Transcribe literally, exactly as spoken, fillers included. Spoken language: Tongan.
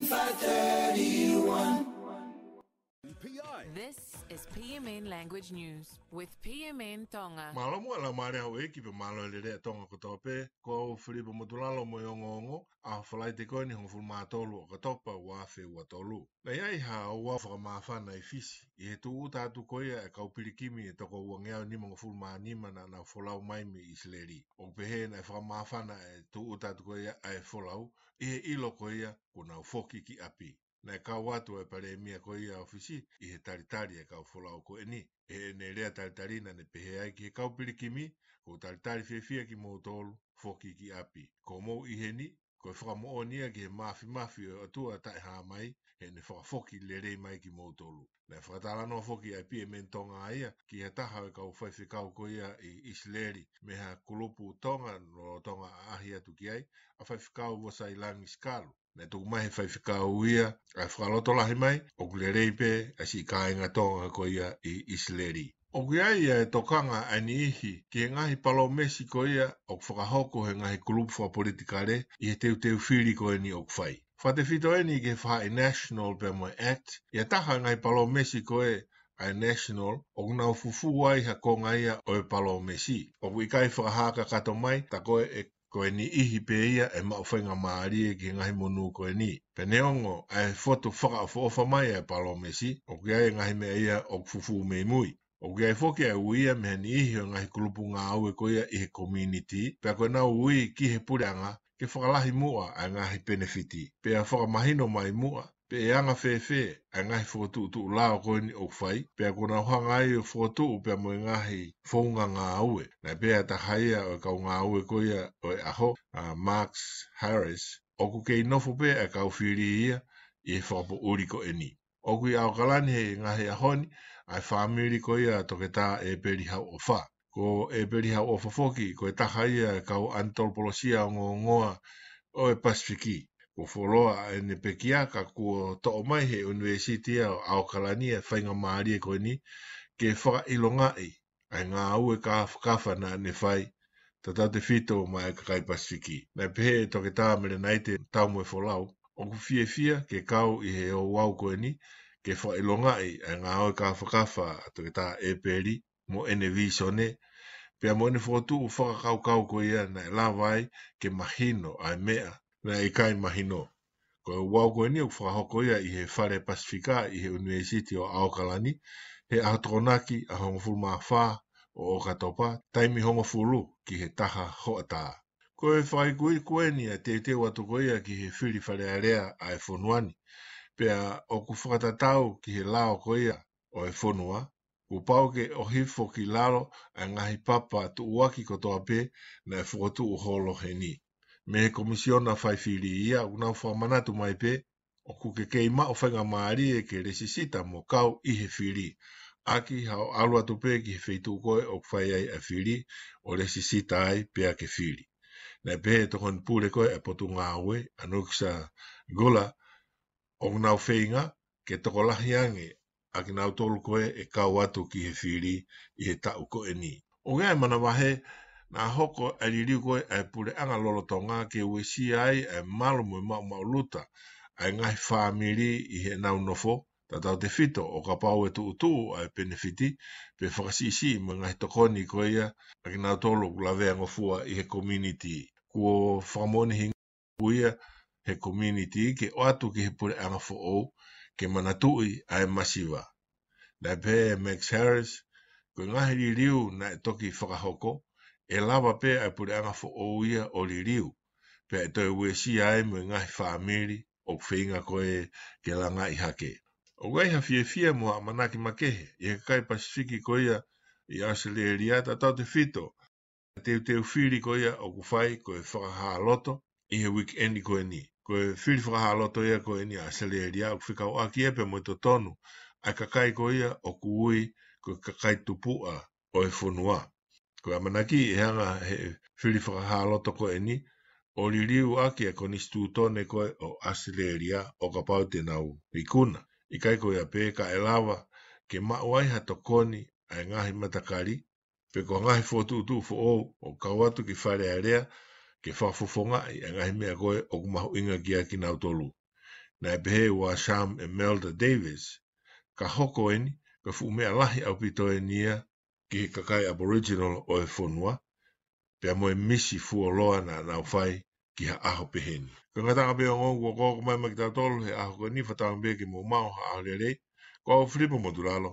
Five thirty-one. This is P M N Language News with P M N Tonga. Mālō muʻa e laumālie ʻa houʻeiki pea mālō e lelei ʻa Tonga kotoa pē, ko au Filipa Motulalo mo e ongoongo, ʻaho Falaite ko eni hongofulu mā tolu ʻo ʻOkatopa ua afe ua tolu. Naʻe ʻi ai ha ouau fakamāfana ʻi Fisi, ʻi he tūʻuta atu ko ia e kau pilikimi ʻe toko uangeau nimangofulu mā nima naʻa nau folau mai mei ʻIsileli. ʻOku pehē naʻe fakamāfana e tūʻuta atu ko ia ʻa e folau, ʻi he ʻilo ko ia kuo nau foki ki ʻapi. Naʻe kau atu e palēmia ko ia ʻo Fisi ʻi he talitali e kau folau ko eni. ʻI heʻene lea talitali naʻa ne pehē ai ki he kau pilikimi, ʻoku ou talitali fiefia kimoutolu, foki ki ʻapi. Ko hoʻomou ʻi heni, ko e fakamoʻoni ia ki he māfimafi ʻo e ʻOtua taʻehāmai, heʻene fakafoki lelei mai kimoutolu. Naʻe fakatalanoa foki ʻa e P M N Tonga ia ki ha taha ʻo e kau faifekau ko ia ʻi ʻIsileli, mei ha kulupu Tonga lolotonga ʻaʻahi atu ki ai, ʻa Faifekau Vosailangi Sikalu. Naʻe tuku mai he faifekau ia ʻa e fakalotolahi mai, ʻoku lelei pē ʻa siʻi kāinga Tonga ko ia ʻi ʻIsileli. ʻOku ʻi ai ʻa e tokanga ʻa e niʻihi ki he ngaahi palōmesi ko ia ʻoku fakahoko he ngaahi kulupu fakapolitikale ʻi he teuteu fili ko eni ʻoku fai. Fakatefito eni ki he faʻahi National pea mo e ACT, ʻi ha taha e ngaahi palōmesi ko ē ʻa e National, ʻoku nau fufū ai ha konga ia ʻo e palōmesi. ʻOku ʻikai fakahā kakato mai, tā ko ē ʻe ko e niʻihi pē ia ʻe maʻu faingamālie ki he ngaahi monū ko eni. Pea neongo ʻa e fotu fakaʻofoʻofa mai ʻa e palōmesi, ʻoku ʻi ai e ngaahi meʻa ia ʻoku fufū mei mui. ʻOku ʻi ai foki ʻa e ui ia mei he niʻihi ʻo e ngaahi kulupu ngāue ko ia ʻi he community, pea ko ʻenau ui ki he puleʻanga ke fakalahi muʻa ʻa e ngaahi penefiti, pea fakamahino mai muʻa pe ʻe anga fēfē ʻa e ngaahi fokotuʻutuʻu lao ko eni ʻoku fai, pea kuo nau hanga ai ʻo fokotuʻu pea mo e ngaahi founga ngāue. Naʻe pehē ʻe ha taha ia ʻo e kau ngāue ko ia ʻo e ʻaho, ʻa Max Harris, ʻoku kei nofo pē ʻa e kau fili ia ʻi he fakapoʻuli ko eni. ʻOku ʻi ʻAokalani he ngaahi ʻaho ni ʻa e fāmili ko ia ʻa Toketā ʻEpeli Hauʻofa. Ko ʻEpeli Hauʻofa foki, ko e taha ia e kau ʻanitolopolosia ongoongoa ʻo e Pasifiki. Kuo fuoloa ʻene pekia, ka kuo toʻo mai he ʻUnivēsiti ʻo ʻAokalani e faingamālie ko eni ke fakaʻilongaʻi ʻa e ngāue kāfakafa naʻa ne fai, tautautefito maʻa e kakai Pasifiki. Naʻe pehē ʻe Toketā Melenaite Taumoefolau, ʻoku fiefia ke kau ʻi he ouau ko eni ke fakaʻilongaʻi ʻa e ngāue kāfakafa ʻa Toketā ʻEpeli mo ʻene vīsone, pea mo ʻene fokotuʻu fakakaukau ko ia naʻe lava ai ke mahino ʻa e meʻa naʻe ʻikai mahino. Ko e ouau ko eni ʻoku fakahoko ia ʻi he Fale Pasifika ʻi he ʻUnivēsiti ʻo ʻAokalani, he ʻaho Tokonaki ʻaho hongofulu mā fā ʻo ʻOkatopa, taimi hongofulu ki he taha hoʻatā. Ko e fakaikuiku eni ʻa e teuteu atu ko ia ki he fili Fale Alea ʻa e fonua ni, pea ʻoku fakatatau ki he lao ko ia ʻo e fonua, kuo pau ke ʻohifo ki lalo ʻa e ngaahi papa tuʻuaki kotoa pē naʻe fokotuʻu holo heni. Mei he Komisiona Fai Fili ia, ʻoku nau fakamanatu mai pē ʻoku ke kei maʻu faingamālie ke lēsisita mo kau ʻi he fili, ʻaki haʻo ʻalu atu pē ki he feituʻu ko ē ʻoku fai ai ʻa e fili ʻo lēsisita ai pea ke fili. Naʻe pehē ʻe he Tokoni Pule ko ē ʻa e Potungāue, ʻa Nuksa Gula, ʻoku nau feinga ke tokolahi ange ʻa kinautolu ko ē ʻe kau atu ki he fili ʻi he taʻu ko eni. ʻOku ʻi ai e manavahē naʻa hoko ʻa e liliu ko ē ʻa e puleʻanga lolotonga ke uesia ai ʻa e malu mo e maʻumaʻuluta ʻa e ngaahi fāmili ʻi heʻenau nofo, tautautefito ʻo kapau ʻe tuʻutuʻu ʻa e penefiti pe fakasiʻisiʻi mo e ngaahi tokoni ko ia ʻa kinautolu ʻoku laveangofua ʻi he community. Kuo fakamoʻoniʻi ʻe ia he community ke ʻoatu ki he puleʻanga foʻou ke manatuʻi ʻa e masiva. Naʻe pehē ʻe Max Harris, ko e ngaahi liliu naʻe toki fakahoko, ʻe lava pē ʻa e puleʻanga foʻou ia ʻo liliu, pea ʻe toe uesia ai mo e ngaahi fāmili ʻoku feinga ko ē ke langaʻi hake. ʻOku ʻi ai ha fiefia mo ha ʻamanaki makehe ʻi he kakai Pasifiki ko ia ʻi ʻAositelēlia, tautautefito ʻa e teuteu fili ko ia ʻoku fai ko e fakahāloto ʻi he weekend ko eni. Ko e fili fakahāloto ia ko eni ʻa ʻAositelēlia ʻoku fekauʻaki ia pea mo e totonu ʻa e kakai ko ia ʻoku ui ko e kakai tupuʻa ʻo e fonua. Ko e ʻamanaki ʻe hanga he fili fakahāloto ko eni ʻo liliu ʻaki ʻa e konisitūtone ko ē ʻo ʻAositelēlia ʻo kapau te nau ikuna. ʻIkai ko ia pē ka ʻe lava ke maʻu ai ha tokoni ʻa e ngaahi matakali, pe ko e ngaahi fokotuʻutuʻu foʻou ʻo kau atu ki Fale Alea ke fakafofongaʻi ʻa e ngaahi meʻa ko ē ʻoku mahuʻinga kiate kinautolu. Naʻe pehē ʻe Sham Imelda Davis, ka hoko eni ko e fuʻu meʻa lahi ʻaupito eni ia ki he kakai Aboriginal ʻo e fonua, pea mo e misi fuoloa naʻa nau fai ki ha ʻaho pehē ni. Ko e ngataʻanga pē ʻo e ongo kuo koko mai maʻa kitautolu he ʻaho ko eni, fakatauange pē ke mou maʻu ha ʻaho lelei. Ko au Filipo Motulalo.